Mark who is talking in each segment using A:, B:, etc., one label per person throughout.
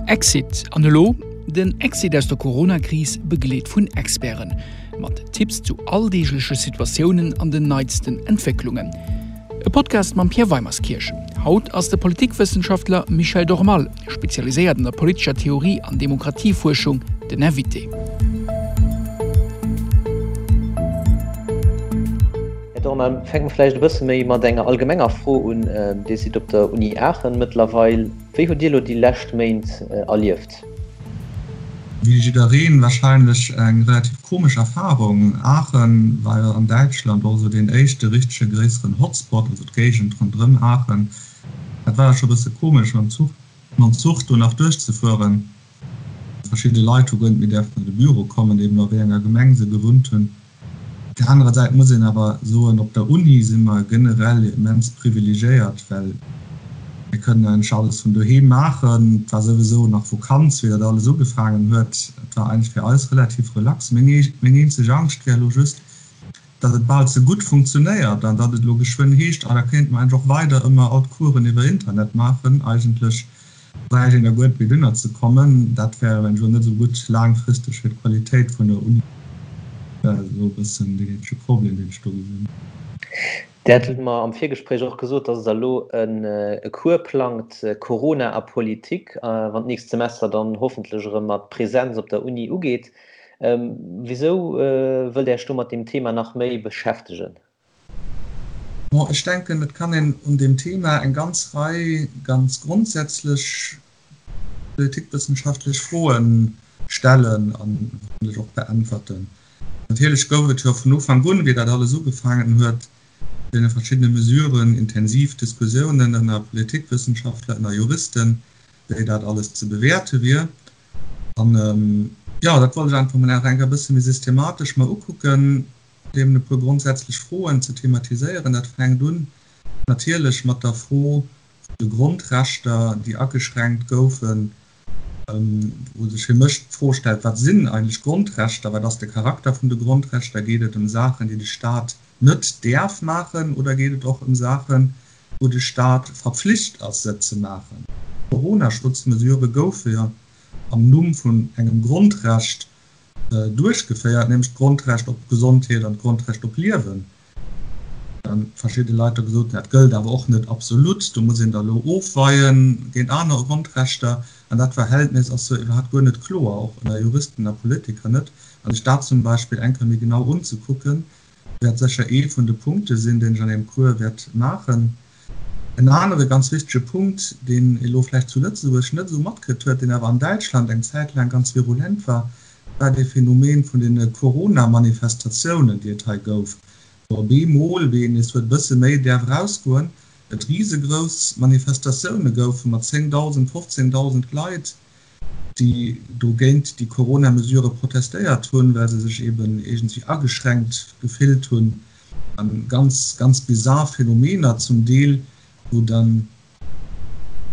A: Exit an elo? Den Exit aus der Corona-Kris begleet vun Experten. Mat Tipps zu alldeegleche Situatiounen an den neitsten Entwécklungen. E Podcast mam Pierre Weimerskirch. Haut ass de Politikwëssenschaftler Michel Dormal, spezialiséiert an der politescher Theorie an Demokratiefuerschung, den Invité.
B: Här Dormal, fänke mer vläicht e bësse méi mat enger allgemenger Fro un. Dir sidd op der Uni Aachen mëttlerweil. Wéi hutt Dir elo déi lescht Méint erlieft?
C: Wéi jiddereen wahrscheinlech eng relativ komesch Erfahrung. Aachen war jo an Däitschland och esou deen éischte richtege gréisseren Hotspot, also d'Géigend ronderëm Aachen. Dat war jo scho bësse komesch mam Zuch, mam Zuch do nach duerchzefueren. Verschidde Leit hu guer net méi däerfen an de Büro kommen, eben a wéi enger Gemeng se gewunnt hunn. Op där anerer Säit muss een awer soen, op der Uni si mer generell immens privilegiéiert, well mir kënnen eigentlech alles vun doheem maachen. Et war souwisou nach Vokanz, wéi dat alles ugefaangen huet. Et war eigentlech fir eis relativ relax. Meng eenzeg Angscht wär elo just, datt et bal ze gutt funktionéiert an datt et elo geschwënn heescht, ah da kéinte mer eigentlech och weider ëmmer all d'Coursen iwwer Internet maachen. Eigentlech bräicht een da guer net méi dunner ze kommen. Dat wär eventuell net esou gutt laangfristeg fir d'Qualitéit vun der Uni. Dat ass elo e bëssen deen eenzege Problem, deen ech do gesinn.
B: Dir hat mer am Virgespréich och gesot, dass Der elo e Cours plangt, Corona a Politik, wann d'nächst Semester dann hoffentlech erëm mat Präsenz op der Uni ugeet. Wisou wëllt Dir Iech do mat deem Thema nach méi beschäftegen?
C: Bon, ech denken, et kann een un deem Thema eng ganz Rei ganz grondsätzlech politikwëssenschaftlech Froe stellen an hoffentlech och beäntwerten. Natierlech gouf et jo vun Ufank un, wéi dat alles ugefaangen huet, deene verschiddene Mesuren, intensiv Diskussiounen ënner Politikwëssenschaftler, ënner Juristen, wéi dat alles ze bewäerte wier. An, jo, dat wollt ech einfach mol nach eng Kéier e bësse méi systematesch mer ukucken. Eben e puer grondsätzlech Froen ze thematiséieren. Dat fänkt un natierlech mat der Fro vun de Grondrechter, déi ageschränkt goufen, wou sech fir mech d'Fro stellt, Wat sinn eigentlech Grondrechter? Wat ass de Charakter vun de Grondrechter? Geet et ëm Saachen, déi de Stat net däerf maachen, oder geet et och ëm Saachen, wou de Stat verpflicht ass, se ze maachen? D'Corona-Schutzmesurë goufe jo am Numm vun engem Grondrecht duerchgeféiert, nämlech d'Grondrecht op Gesondheet an d'Grondrecht op Liewen. Dann verschidde Leit da gesot, dat gëllt awer och net absolut, do muss een da elo ofweie géint aner Grondrechter. An dat Verhältnis ass jo iwwerhaapt guer net kloer, och ënner Juristen a Politiker net. A sech dat zum Beispill eng Kéier méi genau unzekucken, wäert sécher ee vun de Punkte sinn, deen ech an deem Cours wäert maachen. En anere ganz wichtege Punkt, deen ee lo vläicht zu Lëtzebuerg net esou matkritt huet, deen awer an Däitschland eng Zäit laang ganz virulent war, war dee Phänomen vun deene Corona-Manifestatiounen, déi et hei gouf, wou op eemol, wéi een nees huet e bësse méi däerf erausgoen, et risegrouss Manifestatioune goufe mat 10.000, 15.000 Leit, déi do géint déi Corona-Mesurë protestéiert hunn, well se sech eben iergendwéi ageschränkt gefillt hunn. A ganz, ganz bizar Phänomener zum Deel, wou dann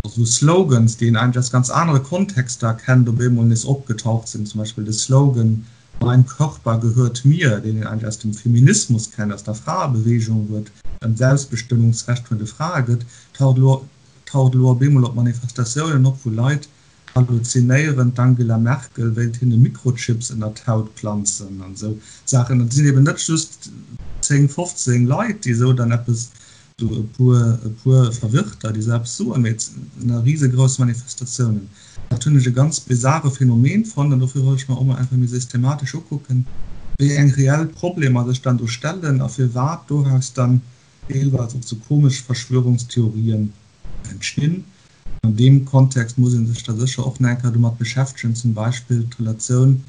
C: esou Slogans, déi een eigentlech aus ganz anere Kontexter kennt, op eemol nees opgetaucht sinn. Zum Beispill de Slogan Mein Körper gehört mir, deen een eigentlech aus dem Feminismus kennt, aus der Fraebeweegung, wou et ëm d'Selbstbestëmmungsrecht vun de Frae gëtt, taucht elo taucht elo op eemol op Manifestatiounen op, wou Leit halluzinéieren, d'Angela Merkel wéilt hinne Mikrochips ënner d'Haut planzen an esou Saachen. Et sinn eben net just 10, 15 Leit, déi esou dann eppes, esou e puer, e puer Verwirrter, déi esou eppes soen, mee et sinn risegrouss Manifestatiounen. Dat hunn ech e ganz bizare Phänomen fonnt an dofir wollt ech mer och mol einfach méi systematesch ukucken, wéi eng reell Problemer sech dann do stellen a firwat doraus dann deelweis och sou komesch Verschwörungstheorien entstinn. An deem Kontext muss ee sech da sécher och nach eng Kéier domat beschäftegen, zum Beispill d'Relatioun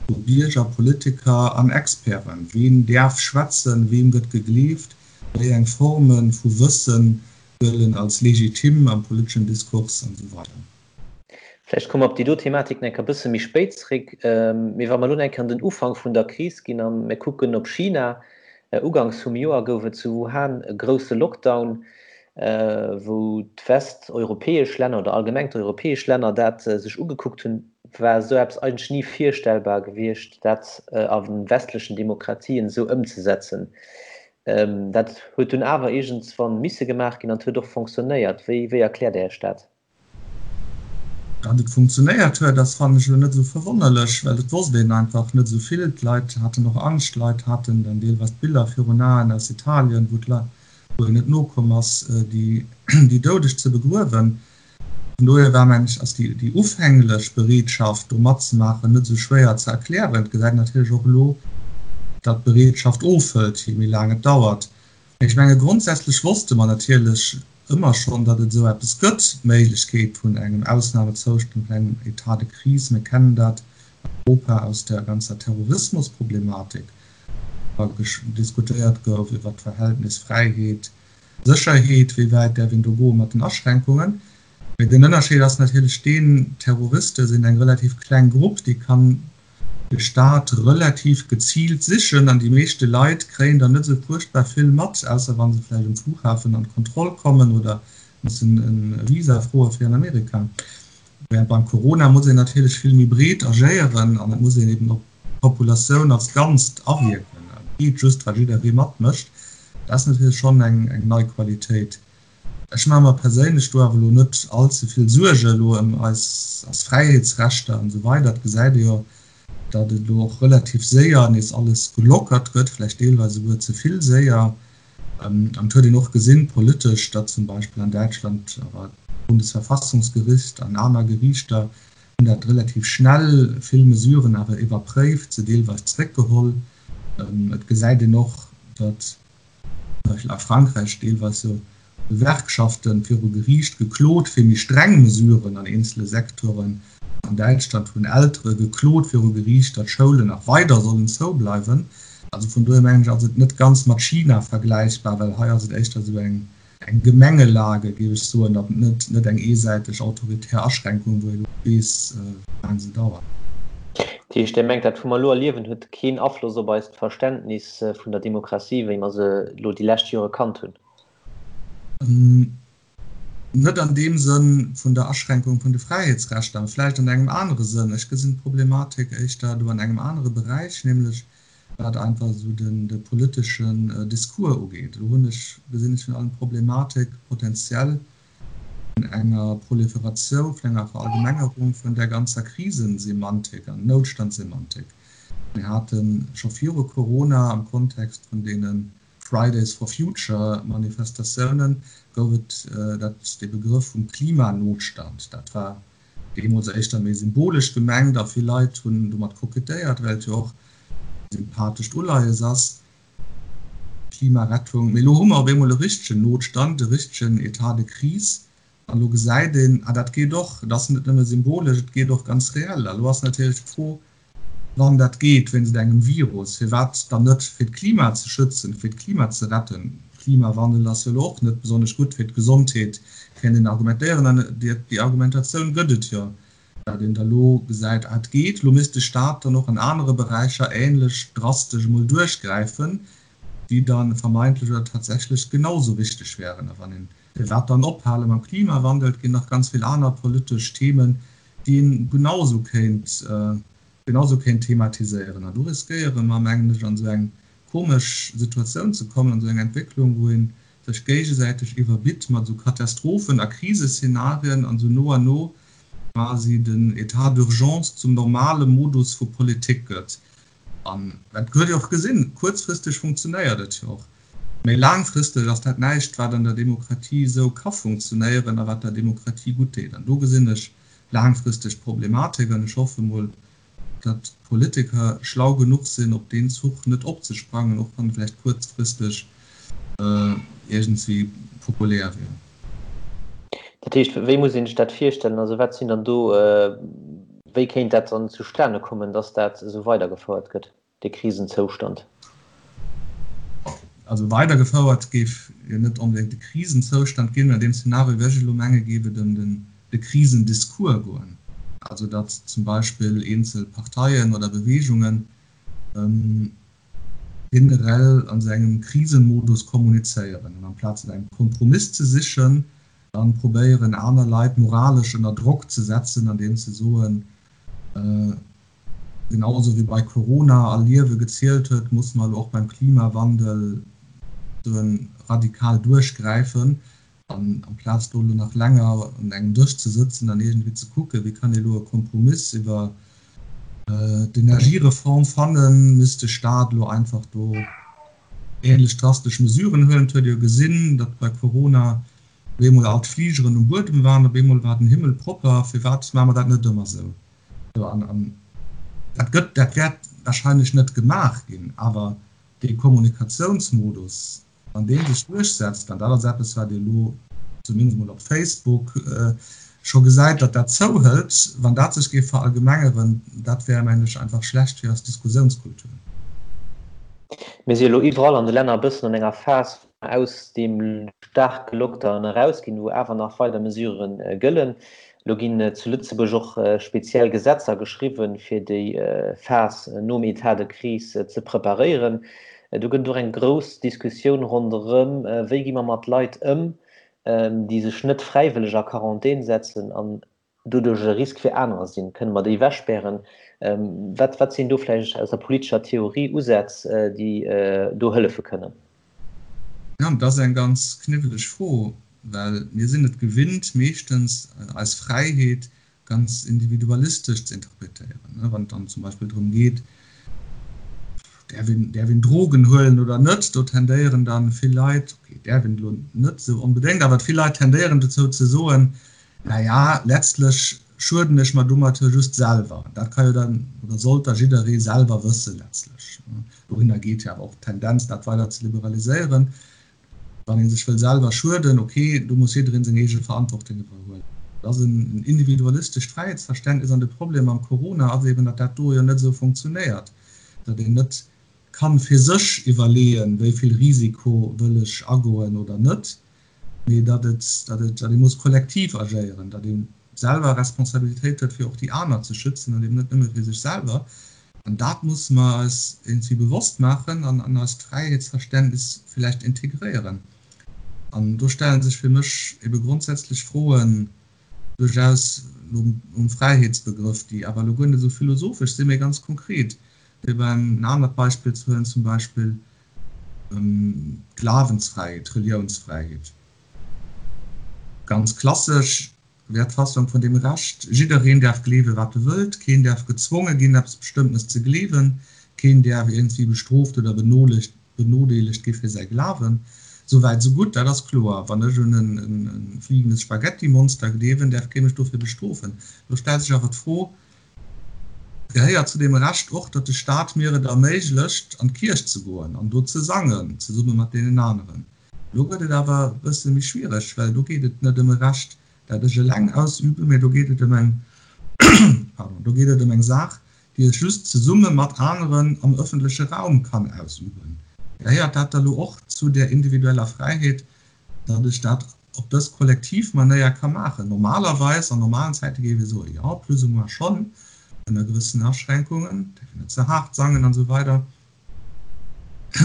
C: vu Bierger, Politiker an Experten. Ween däerf schwätzen, weem gëtt gegleeft, wéi eng Forme vu Wësse gëllen als legitim am politeschen Diskurs an esou weider.
B: Vläicht komme mer op déi do Thematik nach eng Kéier e bësse méi spéit zréck. Mee wa mer elo nach eng Kéier an den Ufank vun der Kris ginn a mir kucken op China, Uganks vum Joer gouf et zu Wuhan e grousse Lockdown, wou d'westeuropäesch Länner oder allgemeng d'europäesch Länner dat sech ugekuckt hunn, war esou eppes eigentlech ni virstellbar gewiescht, dat a westlechen Demokratien esou ëmzesetzen. Dat huet dunn awer iergendswann misse gemaach ginn an et huet och fonctionnéiert. Wéi erkläert Dir Iech dat?
C: Datt et funktionéiert huet, ass, fannen ech, elo net esou verwonnerlech, well et wosst een einfach net esou vill. D'Leit haten och Angscht, d'Leit haten dann deelweis d'Biller virun Aen aus Italien, wou d'Leit, wou een net nokomm ass, déi déi Doudeg ze begruewen. Vun dohier war, mengen ech, ass déi déi ufänglech Bereetschaft, do matzemaachen, net esou schwéier ze erklären. Et gesäit een natierlech och elo, datt d'Bereetschaft ofhëlt, je méi laang et dauert. Mee ech menge grondsätzlech wosste mer natierlech ëmmer schonn, datt et esou eppes gëtt, d'Méiglechkeet vun engem Ausnamezoustand, vun engem État de crise. Mir kennen dat an Europa aus der ganzer Terrorismusproblematik, wou diskutéiert gouf iwwert d'Verhältnis Fräiheet, Sécherheet, wéi wäit däerf een do goe mat den Aschränkungen. Mee den Ënnerscheed ass natierlech deen, Terroriste sinn eng relativ kleng Grupp, déi kann de Staat relativ geziilt sichen an déi meeschte Leit kréien der net esou fuerchtbar vill mat, ausser wa se vläicht um Flughafen an d'Kontroll kommen oder mussen e Visa froe fir an Amerika. Während beim Corona muss een natierlech vill méi breet agéieren an et muss een eben op d'Populatioun als Ganzt awierken. Et geet just, wa jidderee matmécht. Dat ass natierlech schonn eng nei Qualitéit. Ech maache mer perséinlech do awer elo net all ze vill Suerge elo ëm eis eis Fräiheetsrechter an esou weider. Et gesäit ee jo, datt et elo och relativ séier nees alles gelockert gëtt, vläicht deelweis esouguer ze vill séier. An et huet een och gesinn, politesch, datt zum Beispill an Däitschland awer d'Bundesverfassungsgericht an aner Geriichter hunn dat relativ schnell vill Mesuren awer iwwerpréift, se deelweis zréckgeholl. Et gesäit een och, datt zum Beispill a Frankräich deelweis jo Gewerkschafte viru Geriicht geklot fir méi streng Mesuren an eenzele Secteuren. An Däitschland hunn Eltere geklot viru Geriicht, datt Schoulen nach weider sollen zoubleiwen. Also vun dohier mengen ech ass et net ganz mat China vergläichbar, well hei ass et éischter esou eng eng Gemengelage, géif ech soen, datt et net eng eesäiteg autoritär Aschränkung, wou ee lo weess, wéi laang se dauert.
B: Dat heescht, Dir mengt, dat wou mer elo erliewen, huet keen Afloss op eist Verständnis vun der Demokratie, wéi mer se elo déi lescht Jore kannt hunn?
C: Net an deem Sënn vun der Aschränkung vun de Fräiheetsrechter, mä vläicht an engem anere Sënn. Ech gesinn d'Problematik éischter do an engem anere Beräich, nämlech wat einfach esou den de politeschen Discours ugeet. Do hunn ech, gesinn ech virun allem d'Problematik potenziell vun enger Proliferatioun, vun enger Verallgemengerung vun där ganzer Krisensemantik an Noutstandssemantik. Mir hate scho viru Corona am Kontext vun deene Fridays for Future Manifestatiounen gouf et dat, dee Begrëff vum Klimanotstand. Dat war Deemools éischter méi symbolesch gemengt a vill Leit hunn domat kokettéiert, well et jo och e sympathescht Uleies ass, Klimarettung. Mee elo hu mer op eemol e richtegen Notstand, e richtegen Etat de crise an elo gesäit een, ah dat geet och, et ass net nëmme symbolesch, et geet och ganz reell. A elo ass natierlech d'Fro, Wann dat geet wéinst engem Virus, firwat dann net fir d'Klima ze schützen, fir d'Klima ze retten? Klimawandel ass jo elo och net besonnesch gutt fir d'Gesondheet, kéint een argumentéieren. An déi Argumentatioun gëtt et jo, datt een da lo gesäit, ah et geet, lo misst de Staat dann och an anere Beräicher änlech drastesch emol duerchgräifen, déi da vermeintlech oder tatsächlech genau sou wichteg wären. A wann een, firwat dann ophale mam Klimawandel? Et ginn nach ganz vill aner politesch Themen, déi een genausou kéint, genausou kéint thematiséieren. An do riskéiere mer, mengen ech, an esou eng komesch Situatioun ze kommen, an esou eng Entwécklung, wou ee sech géigesäiteg iwwerbitt mat esou Katastrophen a Kriseszenarien an esou no an no quasi den État d'urgence zum normale Modus vu Politik gëtt. An dat huet ee och gesinn, kuerzfristeg funktionéiert et jo och, mä laangfristeg ass dat näischt, wat an der Demokratie esou ka funktionéieren a wat der Demokratie gutt deet. An do gesinn ech laangfristeg d'Problematik an ech hoffe mol, datt d'Politiker schlau genuch sinn, op deen Zuch net opzesprangen, och wann e vläicht kuerzfristeg iergendwéi populär wier.
B: Dat heescht, wéi muss een sech dat virstellen? Also wat sinn dann do, wéi kéint dat dann zustane kommen, datt dat esou weidergefouert gëtt, dee Krisenzoustand?
C: Also weidergefouert géif jo net onbedéngt de Krisenzoustand ginn. An deem Szenario, wéi ech elo menge, géif et ëm de Krisendiscours goen. Also datt zum Beispill eenzel Parteien oder Beweegungen generell an esou engem Krisenmodus kommunizéieren an amplaz no engem Kompromiss ze sichen, dann probéieren aner Leit moralesch ënner Drock ze setzen, andeems se soen, genau esou wéi bei Corona all Liewe gezielt huet, musse mer elo och beim Klimawandel radikal duerchgräifen. An amplaz do elo nach länger un engem Dësch ze sëtzen an iergendwéi ze kucken, wéi kann ee elo e Kompromiss iwwer d'Energiereform fannen, misst de Staat elo einfach do ähnlech drastesch Mesuren huelen. Et huet ee jo gesinn, datt bei Corona op eemol all d'Fligeren um Buedem waren, op eemol war den Himmel propper. Firwat maache mer dat net ëmmer esou? An dat gëtt, dat wäert wahrscheinlech net gemaach ginn, awer dee Kommunikatiounsmodus, Wann dee sech duerchsetzt, an dat ass eppes, wat ee elo zumindest mol op Facebook scho gesäit, datt dat zouhëlt, wann dat sech géif verallgemengeren, dat wär, mengen ech, einfach schlecht fir eis Diskussiounskultur.
B: Mir si elo iwwerall an de Länner e bëssen an enger Phas, wou mer aus deem staarke Lockdown erausginn, wou awer nach weider Mesurë gëllen. Elo ginn zu Lëtzebuerg och speziell Gesetzer geschriwwen, fir déi Phas nom État de crise ze preparéieren. Do gëtt et och eng grouss Diskussioun ronderëm, wéi gi mer mat Leit ëm, déi sech net fräiwëlleg a Quarantän setzen an doduerch e Risk fir anerer sinn. Kënne mer déi ewechspären? Wat, wat sinn do vläicht aus der politescher Theorie Usätz, déi do hëllefe kënnen?
C: Jo, dat ass eng ganz kniwweleg Fro, well mir sinn et gewinnt, meeschtens eis Fräiheet ganz individualistesch ze interpretéieren. Wann et dann zum Beispill drëm geet, däerf een, däerf een Drogen huelen oder net, do tendéieren dann vill Leit, okay, däerf een elo net esou onbedéngt, awer vill Leit tendéieren dozou ze soen, Na ja, letztlech schueden ech mer domat jo just selwer. Dat ka jo dann, oder sollt da jidderee selwer wëssen, letztlech. Dohinner geet jo awer och d'Tendenz, dat weider ze liberaliséieren. Wann ee sech wëll selwer schueden, ok, do muss jidderee seng eege Verantwortung iwwerhuelen. Dat ass en individualistescht Fräiheetsverständnis an de Problem mam Corona ass eben, datt dat do jo net esou funktionéiert, datt een net kann fir sech iwwerleeën, wéi vill Risiko wëll ech agoen oder net, mee datt et, datt et, datt ee muss kollektiv agéieren, datt ee selwer Responsabilitéit huet, fir och déi aner ze schützen an eben net nëmme fir sech selwer. An dat musse mer eis iergendwéi bewosst maachen an an eist Fräiheetsverständnis villäicht integréieren. An do stelle sech fir mech ebe grondsätzlech Froen duerchaus nom Fräiheetsbegrëff, déi awer elo guer net esou philosophesch sinn, mee ganz konkret. Fir en anert Beispill ze huelen, zum Beispill D'Glawensfräiheet, d'Reliounsfräiheet, ganz klassesch wär d'Fassung vun deem Recht, Jiddereen däerf gleewen, wat e wëllt, keen däerf gezwonge ginn, eppes Bestëmmtenes ze gleewen, keen däerf iergendwéi bestrooft oder benodeelegt gi fir säi Glawen. Souwäit esou gutt, dat ass kloer. Wann ech un e fliegendes Spaghetti-Monster gleewen, däerf kee mech dofir bestrofen. Do stellt sech awer d'Fro, Gehéiert zu deem Recht och, datt de Staat mir et erméiglecht, an d'Kierch ze goen an do ze sangen, zesumme mat deenen aneren. Elo gëtt et awer e bësse méi schwiereg, well do geet et net ëm e Recht, dat ech eleng ausüben, mee do geet et ëm eng, pardon, do geet et ëm eng Saach, déi ech just zesumme mat aneren am ëffentleche Raum kann ausüben. Gehéiert dat da lo och zu där individueller Fräiheet, datt ech dat op dës kollektiv Manéier ka maachen. Normalerweis, an normalen Zäite géif ee soen, jo, plus ou moins schonn, ënner gewëssenen Aschränkungen, däerf een net ze haart sangen an esou weider.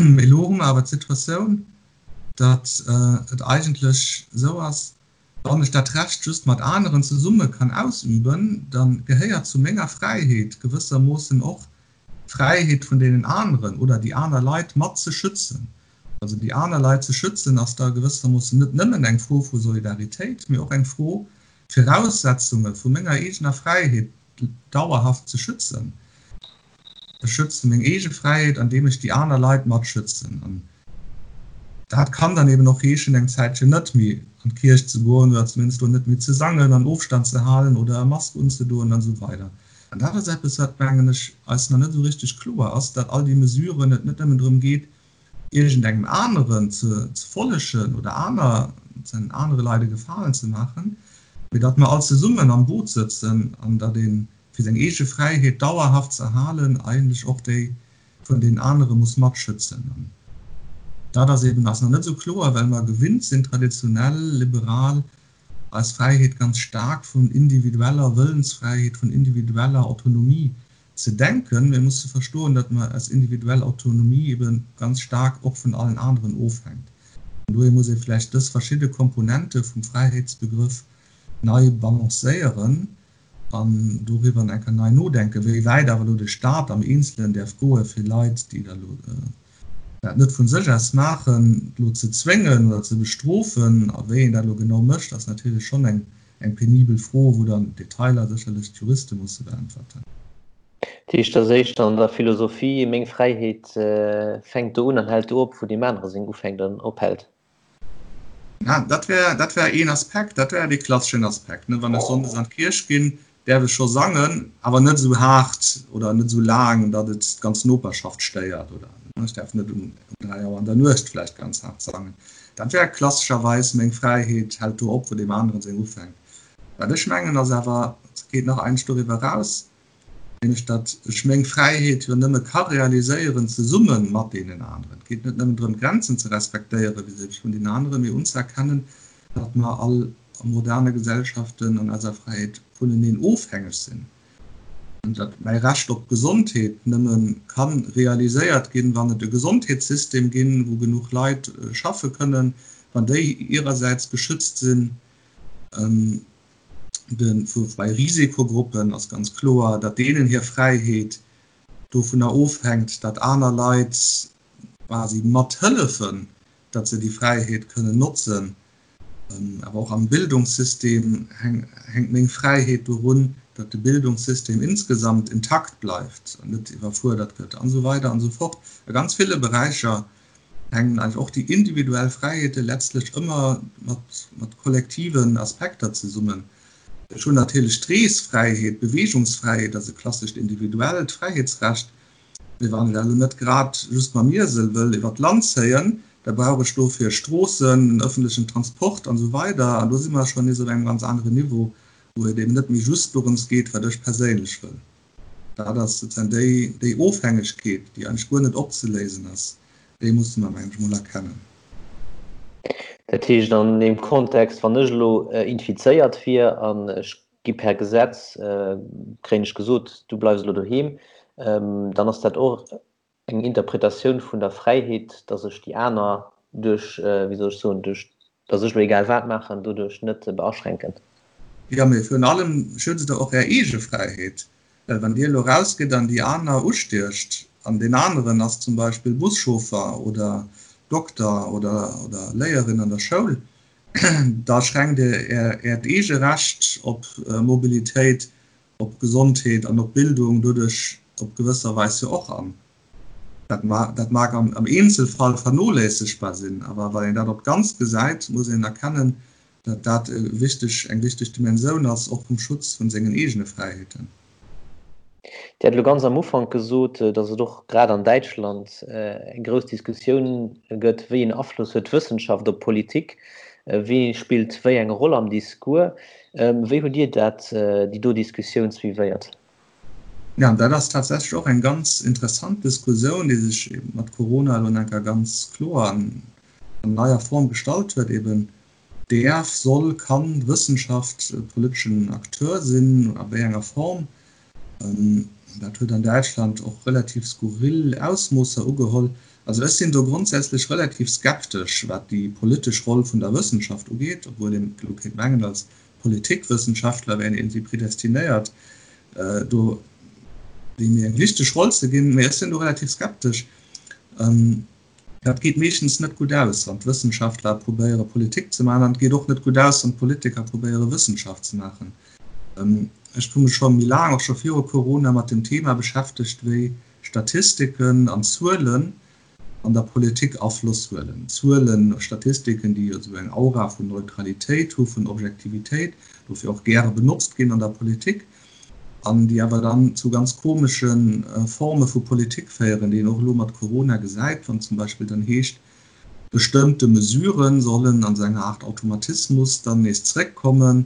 C: Mee elo hu mer awer d'Situatioun, datt et eigentlech esou ass, wann ech dat Recht just mat aneren zesumme kann ausüben, da gehéiert zu menger Fräiheet gewëssermoossen och d'Fräiheet vun deenen aneren oder déi aner Leit mat ze schützen. Also déi aner Leit ze schützen ass da gewëssermoossen net nëmmen eng Fro vu Solidaritéit, mee och eng Fro, d'Viraussetzunge vu menger eegener Fräiheet dauerhaft ze schützen. Ech schütze meng eege Fräiheet, andeem ech déi aner Leit mat schützen. An dat kann dann eben och heeschen, eng Zäitchen net méi an d'Kierch ze goen oder zumindest do net méi ze sangen an Ofstand ze halen oder e Mask unzedoen an esou weider. An dat ass eppes, wat, mengen ech, eis nach net esou richteg kloer ass, datt all déi Mesuren et net nëmmen drëm geet, iergendengem aneren ze follegen oder aner, anere Leit e Gefalen ze maachen, mee datt mer all zesummen am Boot sëtzen an datt ee fir seng eege Fräiheet dauerhaft ze erhalen eigentlech och déi vun deenen anere muss matschützen. An dat ass eben eis nach net esou kloer, well mer gewinnt sinn, traditionell liberal eis Fräiheet ganz staark vun individueller Wëllensfräiheet, vun individueller Autonomie ze denken. Mir musse verstoen, datt mer eis individuell Autonomie ebe ganz staark och vun allen aneren ofhänkt. An dohier muss ee vläicht dës verschidde Komponente vum Fräiheetsbegrëff nei balancéieren an doriwwer eng Kéier nei nodenken, wéi wäit awer elo de Stat am Eenzelen däerf goe fir Leit, déi da elo. Dat net vun sech aus maachen, elo ze zwéngen oder ze bestrofen, a wéi een dat elo genau mécht, ass natierlech schonn eng eng penibel Fro, wou dann d'Detailer sécherlech d'Juriste musse beäntwerten.
B: Dat heescht, dass éischter an der Philosophie, meng Fräiheet fänkt do un an hält do op, wou deem anere seng ufänkt an ophält.
C: Ja, dat wär, dat wär een Aspekt, dat wär dee klasseschen Aspekt, ne? Wann ech sonndes an d'Kierch ginn, däerf ech scho sangen, awer net esou haart oder net esou laang, datt et d'ganz Noperschaft stéiert oder ech däerf net um 3 Auer an der Nuecht vläicht ganz haart sangen. Dat wär klassescherweis meng Fräiheet hält do op, wou deem aneren seng ufänkt. Wat ech mengen ass awer, et geet nach eins doriwwer eraus, nämlech datt ech meng Fräiheet jo nëmme ka realiséieren zesumme mat deenen aneren. Et geet net nëmmen drëm, Grenzen ze respektéiere vis-à-vis vun deenen aneren, mee unzëerkennen, datt mer all a moderne Gesellschaften an eiser Fräiheet vuneneen ofhängeg sinn, an datt mäi Recht op Gesondheet nëmme ka realiséiert ginn, wann et e Gesondheetssystem ginn, wou genuch Leit schaffe kënnen, wann déi hirersäits geschützt sinn. Bei Risikogruppen ass ganz kloer, datt deenen hir Fräiheet dovunner ofhänkt, datt aner Leit quasi mathëllefen, datt se déi Fräiheet kënnen notzen. Awer och am Bildungssystem hänkt meng Fräiheet dorun, datt de Bildungssystem insgesamt intakt bleift an net iwwerfuerdert gëtt an esou weider an esou fort. A ganz ville Beräicher hänken eigentlech och déi individuell Fräiheete letztlech ëmmer mat kollektiven Aspekter zesummen. Ech hunn natierlech d'Reesfräiheet, d'Beweegungsfräiheet ass e klassescht individuellt Fräiheetsrecht, Mee wann ech elo net grad just mam Iesel wëll iwwer d'Land zéien, da brauch ech dofir Stroossen, den ëffentlechen Transport an esou weider. An do si mer schonn nees op engem ganz aneren Niveau, wou et eben net méi just dorëms geet, wat ech perséinlech wëll. Dat ass sozusagen déi, déi Ofhängegkeet, déi eigentlech guer net opzeléisen ass, déi musse mer, mengen ech, emol erkennen.
B: Dat heescht an deem Kontext, wann ech elo infizéiert wier an ech gi per Gesetz, kréien ech gesot, du bleifs elo doheem, dann ass dat och eng Interpretatioun vun der Fräiheet, dass ech déi aner duerch, wéi soll ech soen, duerch dass ech elo egal wat maachen, doduerch net beaschränken.
C: Jo, mee virun allem schützt Der och Är eege Fräiheet, well wann Dir elo rausgitt an déi aner ustiecht an deen aneren ass zum Beispill Buschauffer oder Dokter oder Léierin an der Schoul, Da schränkt Dir Äert eege Recht op Mobilitéit, op Gesondheet an op Bildung doduerch op gewësser Weis jo och an. Dat mag am Eenzelfall vernoléissegbar sinn, awer wann een dat op d'Ganzt gesäit, muss een erkennen, datt dat eng wichteg Dimensioun ass, och vum Schutz vun sengen eegene Fräiheeten.
B: Dir hat elo ganz am Ufank gesot, datt et och grad an Däitschland eng grouss Diskussioun gëtt, wéi een Afloss huet d'Wëssenschaft op d'Politik, wee spillt wéi eng Roll am Discours. Wéi hutt Dir dat, déi do Diskussioun suivéiert?
C: Jo, dat ass tatsächlech och eng ganz interessant Diskussioun, déi sech eben mat Corona elo nach eng Kéier ganz kloer an neier Form gestallt huet, eben Däerf, soll, kann d'Wëssenschaft e politeschen Acteur sinn? A wéi enger Form? Dat huet an Däitschland och relativ skurril Ausmoosser ugeholl. Also ech sinn do grondsätzlech relativ skeptesch, wat déi politesch Roll vun der Wëssenschaft ugeet, obwuel een elo kéint mengen, als Politikwëssenschaftler wär een iergendwéi predestinéiert, do déi méi eng wichteg Roll ze ginn. Mee ech sinn do relativ skeptesch. Dat geet meeschtens net gutt aus, wann d'Wëssenschaftler probéiere Politik ze maachen, an et geet och net gutt aus, wann d'Politiker probéiere Wëssenschaft ze maachen. Ech hu mech scho méi laang, och scho viru Corona, mat dem Thema beschäftegt, wéi Statistiken an Zuelen an der Politik Afloss huelen. Zuelen, Statistiken, déi jo esou eng Aura vun Neutralitéit hu, vun Objektivitéit, dofir och gäre benotzt ginn an der Politik. an déi awer dann zu ganz komesche Forme vu Politik féieren, déi een och elo mat Corona gesäit, wann zum Beispill dann heescht, bestëmmte Mesurë sollen an esou enger Aart Automatismus dann nees zréckkommen,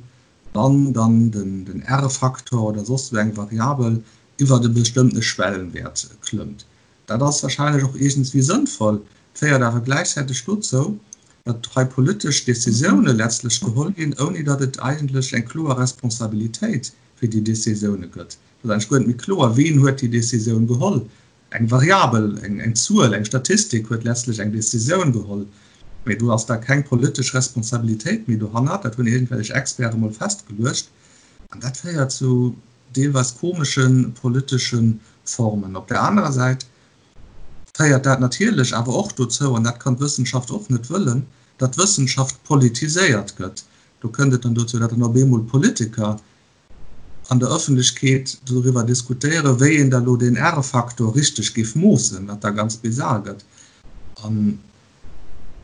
C: wann dann den R-Faktor oder soss esou eng Variabel iwwert e bestëmmtene Schwellenwäert klëmmt. Dat ass wahrscheinlech och iergendswéi sënnvoll, féiert awer gläichzäiteg dozou, datt hei politesch Décisioune letztlech geholl ginn, ouni datt et eigentlech eng kloer Responsabilitéit fir déi Décisioune gëtt. Et ass eigentlech guer net méi kloer, ween huet déi Décisioun geholl. Eng Variabel, eng Zuel, eng Statistik huet letztlech eng Décisioun geholl, mee do ass da keng politesch Responsabilitéit méi dohannert. Dat hunn iergendwellech Experte mol festgeluecht an dat féiert zu deelweis komesche politesche Formen. Op der anerer Säit. Féiert dat natierlech awer och dozou, an dat kann d'Wëssenschaft och net wëllen, datt d'Wëssenschaft politiséiert gëtt. Do kënnt et dann dozou, datt dann op eemol Politiker an der Ëffentlechkeet doriwwer diskutéieren, wéi een da lo deen R-Faktor richteg géif moossen, wat da ganz bizar gëtt. An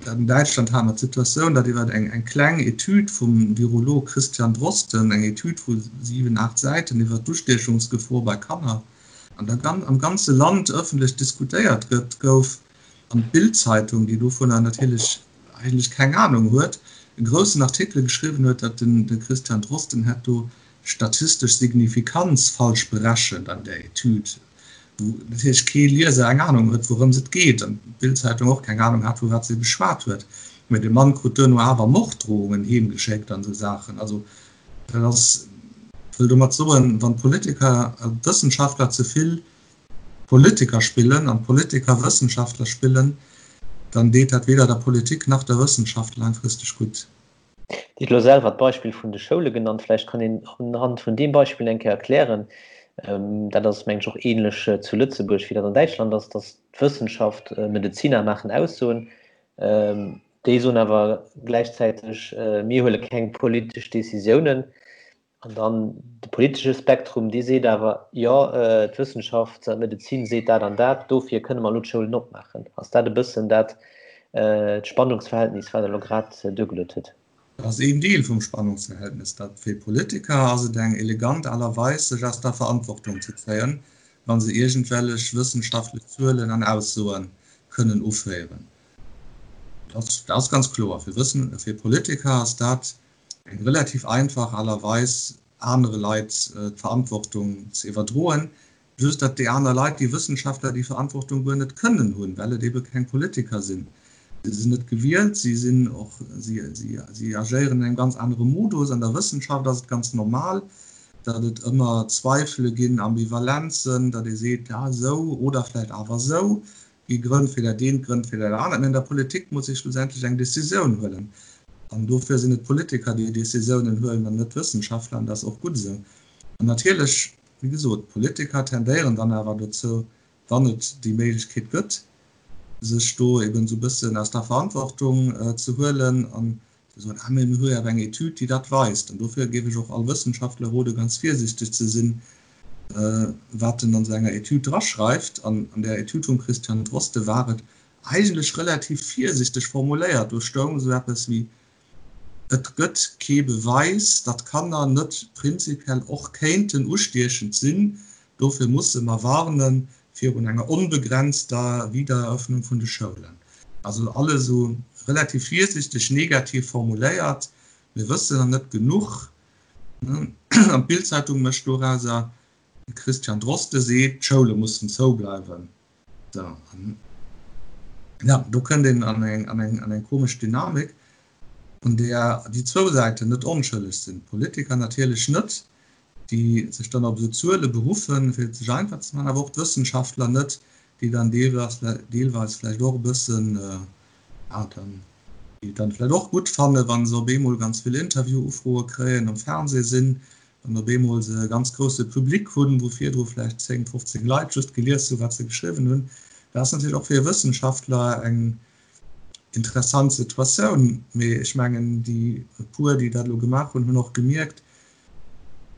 C: an Däitschland hate mer d'Situatioun, datt iwwer eng eng kleng Etüd vum Virolog Christian Drosten, eng Etüd vu 7, 8 Säiten iwwer d'Ustiechungsgefor bei Kanner, an der am ganze Land ëffentlech diskutéiert gëtt, gouf, an d'Bild-Zeitung, déi dovunner natierlech eigentlech keng Anung huet, e groussen Artikel geschriwwen huet, datt den de Christian Drosten hätt do statistesch Signifikanz falsch berechent an där Etüd, wou natierlech kee Lieser eng Anung huet, wourëms et geet, an d'Bild-Zeitung och keng Anung hat, vu wat se geschwat huet. Mä de Mann krut duerno awer Morddrohungen heemgeschéckt an esou Saachen. Also Dat ass, ech wëll domat soen, wann d'Politiker a d'Wëssenschaftler ze vill Politiker spillen an d'Politiker Wëssenschaftler spillen, dann deet dat weder der Politik nach der Wëssenschaft laangfristeg gutt.
B: Dir hutt elo selwer d'Beispill vun de Schoule genannt. Vläicht kann een unhand vun deem Beispill eng Kéier erklären, dat ass, mengen ech, och ähnlech zu Lëtzebuerg, wéi dat an Däitschland ass, dass d'Wëssenschaft, Medeziner maachen Aussoen, Déi soen awer gläichzäiteg, mir huele keng politesch Decisiounen. An dann de politesche Spektrum, dee seet awer, jo, d'Wëssenschaft an d'Medezin seet dat an dat, dofir kënne mer elo d'Schoulen opmaachen. Ass dat e bëssen dat d'Spannungsverhältnis, wat Der elo grad duergeluet hutt?
C: Dat ass een Deel vum Spannungsverhältnis. Dat fir Politiker ass et eng elegant Aart a Weis, sech aus der Verantwortung ze zéien, wa se iergendwellech wëssenschaftlech Zuelen an Aussoe kënnen uféieren. Dat ass ganz kloer. Fir Wëssen, fir Politiker ass dat eng relativ einfach Aart a Weis, anere Leit d'Verantwortung ze iwwerdroen. Just datt déi aner Leit, déi Wëssenschaftler, déi Verantwortung guer net kënnen hunn, well et ebe keng Politiker sinn. Si sinn net gewielt, si sinn och, si, si, si agéieren an engem ganz anere Modus. An der Wëssenschaft ass et ganz normal, datt et ëmmer Zweifele ginn, Ambivalenzen, datt ee seet, ja esou oder vläicht awer esou. Gi Grënn fir dat eent, Grënn fir dat anert. Mee an der Politik muss ee schlussendlech eng Decisioun huelen. An dofir sinn et d'Politiker, déi Decisiounen huelen an net d'Wëssenschaftler. An dat ass och gutt esou. An natierlech, wéi gesot, d'Politiker tendéieren dann awer dozou, wann et déi Méiglechkeet gëtt, sech do eben esou e bëssen aus der Verantwortung ze huelen an ze soen, ah mee mir hu jo awer eng Etüd, déi dat weist. An dofir géif ech och all Wëssenschaftler rode ganz virsichteg ze sinn, wat en an esou enger Etüd draschreift. An an där Etüd vum Christian Drosten war et eigentlech relativ virsichteg formuléiert. Do stoung esou eppes wéi, Et gëtt kee Beweis, datt Kanner net prinzipiell och kéinten ustiechend sinn. Dofir musse mer warne virun enger onbegrenzter Wiedereröffnung vun de Schoulen. Also alles esou relativ virsichteg negativ formuléiert. Mir wëssen nach net genuch. An d'Bild-Zeitung mécht dorauser, de Christian Drosten seet, d'Schoule mussen zoubleiwen. Sou, an ja, do kënnt een an eng, an eng, an eng komesch Dynamik, an där déi zwou Säiten net onschëlleg sinn. D'Politiker natierlech net, déi sech dann op esou Zuele beruffen, fir et sech einfach ze maachen, awer och d'Wëssenschaftler net, déi dann deelweis, deelweis vläicht och e bëssen, ja, dann, déi et dann vläicht och gutt fannen, wa se op eemol ganz vill Interviewufroe kréien, am Fernseh sinn, wann op eemol se e ganz grousse Public hunn, wou virdru vläicht 10, 15 Leit just gelies hunn, wat se geschriwwen hunn. Dat ass natierlech och fir e Wëssenschaftler eng interessant Situatioun. Mee ech mengen, déi e puer, déi dat elo gemaach hunn, hunn och gemierkt,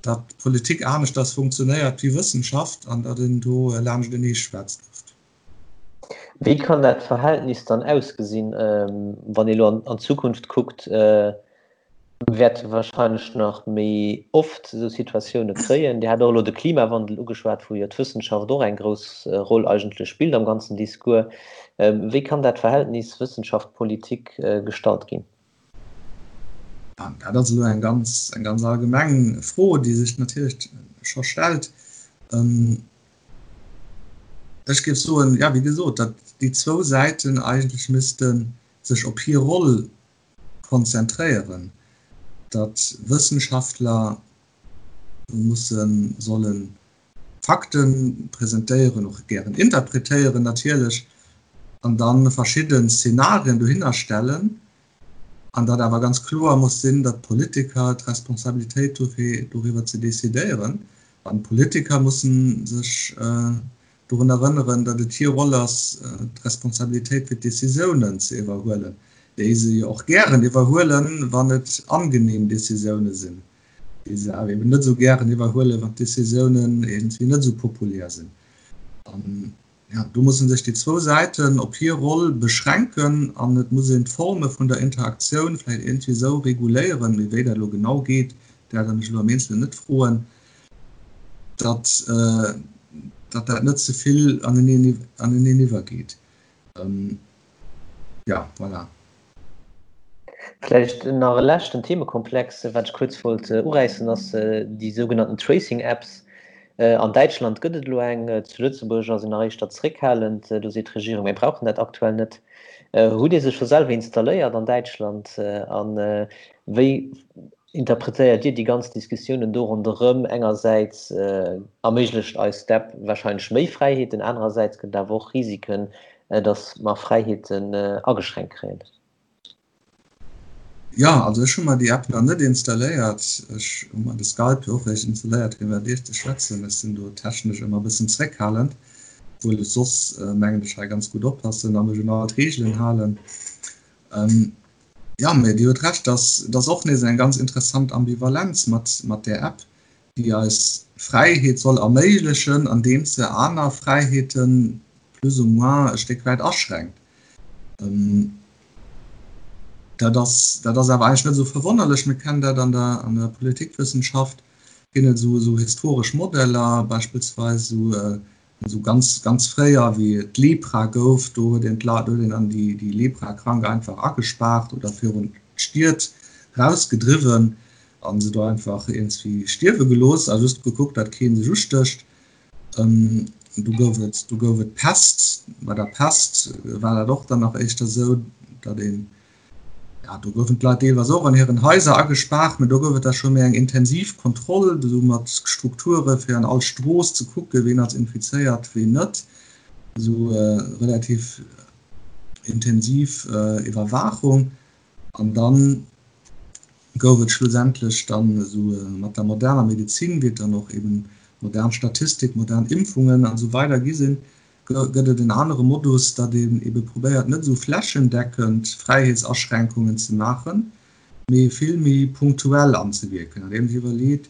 C: datt Politik aneschters funktionéiert wéi Wëssenschaft an datt een do laanschtenee schwätzt oft.
B: Wéi kann dat Verhältnis dann ausgesinn, wann ee elo an d'Zukunft kuckt? Mir wäerte wahrscheinlech nach méi oft esou Situatioune kréien. Dir hat och elo de Klimawandel ugeschwat, wou jo d'Wëssenschaft och eng grouss Roll eigentlech spillt am ganzen Discours. Wéi kann dat Verhältnis Wëssenschaft-Politik gestallt ginn?
C: Dat ass elo eng ganz, eng ganz allgemeng Fro, déi sech natierlech scho stellt. Ech géif soen, jo, wéi gesot, datt déi zwou Säiten eigentlech misste sech op hir Roll konzentréieren, datt Wëssenschaftler mussen, sollen Fakte presentéieren, och gären interpretéieren natierlech, an da verschidden Szenarien dohinner stellen, an datt awer ganz kloer muss sinn, datt d'Politiker d'Responsabilitéit hu fir doriwwer ze decidéieren, an d'Politiker mussen sech. Dorun erënneren, datt et hir Roll ass, d'Responsabilitéit fir d'Décisiounen ze iwwerhuelen, déi se jo och gären iwwerhuelen, wann et angenehm Décisioune sinn, déi se awer eben net esou gären iwwerhuelen, wann d'Décisiounen iergendwéi net esou populär sinn. An, jo, do musse sech déi zwou Säiten op hir Roll beschränken an et muss een d'Forme vun der Interaktioun vläicht iergendwéi esou reguléieren, mee wéi dat elo genau geet, dat der mech elo am Eenzelen net froen, datt datt dat net ze vill aneneen aneneen iwwergeet. Ja, voilà.
B: Vläicht nach e leschten Themekomplex, wat ech kuerz wollt uräissen, ass déi sougenannten Tracing Apps. An Däitschland gëtt et elo eng, zu Lëtzebuerg ass een nach éischter zeréckhalend. Do seet d'Regierung, mir brauchen dat aktuell net. Hutt Dir se scho selwer installéiert an Däitschland? A wéi Interpretéiert Dir déi ganz Diskussiounen do ronderëm? Engersäits erméiglecht eis d'App warscheinlech méi Fräiheeten, anerersäits gëtt et awer och Risiken, datt mer Fräiheeten ageschränkt kréien.
C: Jo, also ech hu mer déi App nach net installéiert. Ech hu mer de Skype jo och eréischt installéiert fir mat Iech ze schwätzen. Ech sinn do technesch ëmmer e bëssen zréckhalend, obwuel ech soss, mengen ech, hei ganz gutt oppassen a mech un all d'Reegelen halen. Jo, mee Dir hutt Recht, dass et ass och nees eng ganz interessant Ambivalenz mat mat där App, déi eis Fräiheet soll erméiglechen, andeems se aner Fräiheete plus ou moins e Stéck wäit aschränkt. Dat ass dat ass awer eigentlech net esou verwonnerlech. Mir kennen dat an der an der Politikwëssenschaft ginn et esou esou historesch Modeller, beispillsweis esou Esou ganz, ganz fréier, wéi et d'Lepra gouf, do huet een d'Leit, do huet een dann déi, déi Leprakrank einfach agespaart oder virun d'Stied rausgedriwwen a se do einfach iergendwéi stierwe gelooss a just gekuckt, datt kee sech ustécht. Du gouf et, du gouf et d'Pest. Bei der Pest war dat och dann nach éischter esou, datt een, Ja, do goufen d'Leit deelweis och an hiren Haiser agespaart, mä do gouf et da scho méi eng intensiv Kontroll, esou mat Strukture fir an all Strooss ze kucken, ween ass infizéiert, ween net. Esou relativ intensiv Iwwerwaachung. An da gouf et schlussendlech dann esou mat der moderner Medezin, wéi et dann och eben modern Statistik, modern Impfungen an esou weider gi sinn, gëtt et en anere Modus, datt een ebe probéiert net esou flächendeckend Fräiheetsaschränkungen ze maachen, mee vill méi punktuell anzewierken, andeems ee iwwerleet,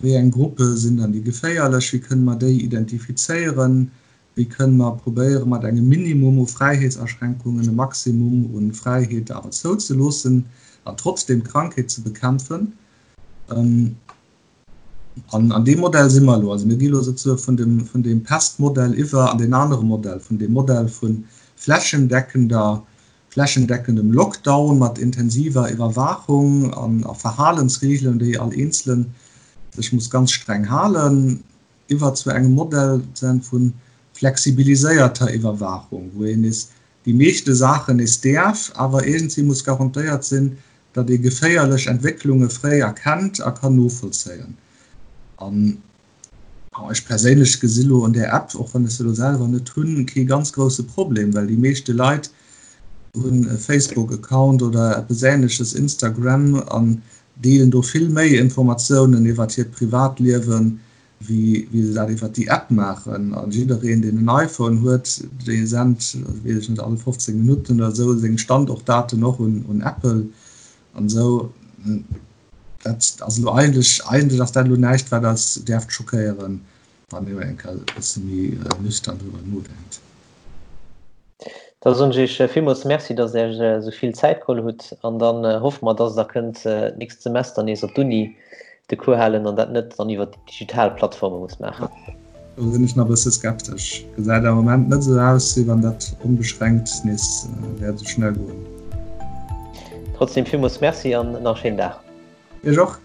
C: wéi eng Gruppe sinn dann déi geféierlech, wéi kënne mer déi identifizéieren, wéi kënne mer probéiere mat engem Minimum u Fräiheetsaschränkungen e Maximum u Fräiheete awer zouzeloossen an trotzdeem d'Krankheet ze bekämpfen. An an deem Modell si mer elo. Also mir gi elo souzesoe vun dem, vun deem Pestmodell iwwer an deen anere Modell, vun deem Modell vu flächendeckender, flächendeckendem Lockdown mat intensiver Iwwerwaachung an a Verhalensregeln, déi all Eenzele sech muss ganz streng halen, iwwer zu engem Modell sozusagen vu flexibiliséierter Iwwerwaachung, wou een nees déi meeschte Saachen nees däerf, awer iergendwéi muss garantéiert sinn, datt ee geféierlech Entwécklunge fréi erkennt a kann novollzéien. An ech perséinlech gesi lo un där App, och wann ech se elo selwer net hunn, kee ganz grousse Problem, well déi meeschte Leit hunn e Facebook-Account oder eppes Änleches, Instagram, an deelen do vill méi Informatiounen iwwert hiert Privatliewen, wéi wéi se dat iwwert déi App maachen. A jiddereen, deen en iPhone huet, dee sent, weess ech net, all 15 Minutten oder esou seng Standortdaten och un un Apple an esou. Dat ass elo eigentlech, eigentlech ass dat elo näischt, wat eis däerft schockéieren, wann een eng Kéier e bësse méi nüchtern driwwer nodenkt.
B: Da soen ech Iech villmools Merci, dass Der Iech esou vill Zäit geholl hutt. An dann hoffe mer, dass Der kënnt d'nächst Semester nees op d'Uni de Cours halen an dat net dann iwwer déi digital Plattforme musst maachen.
C: Do sinn ech nach e bësse skeptesch. Gesäit am Moment net esou aus, wéi wann dat onbeschränkt nees wäert esou schnell goen.
B: Trotzdem villmools Merci an nach e schéinen Dag.
C: Iech och.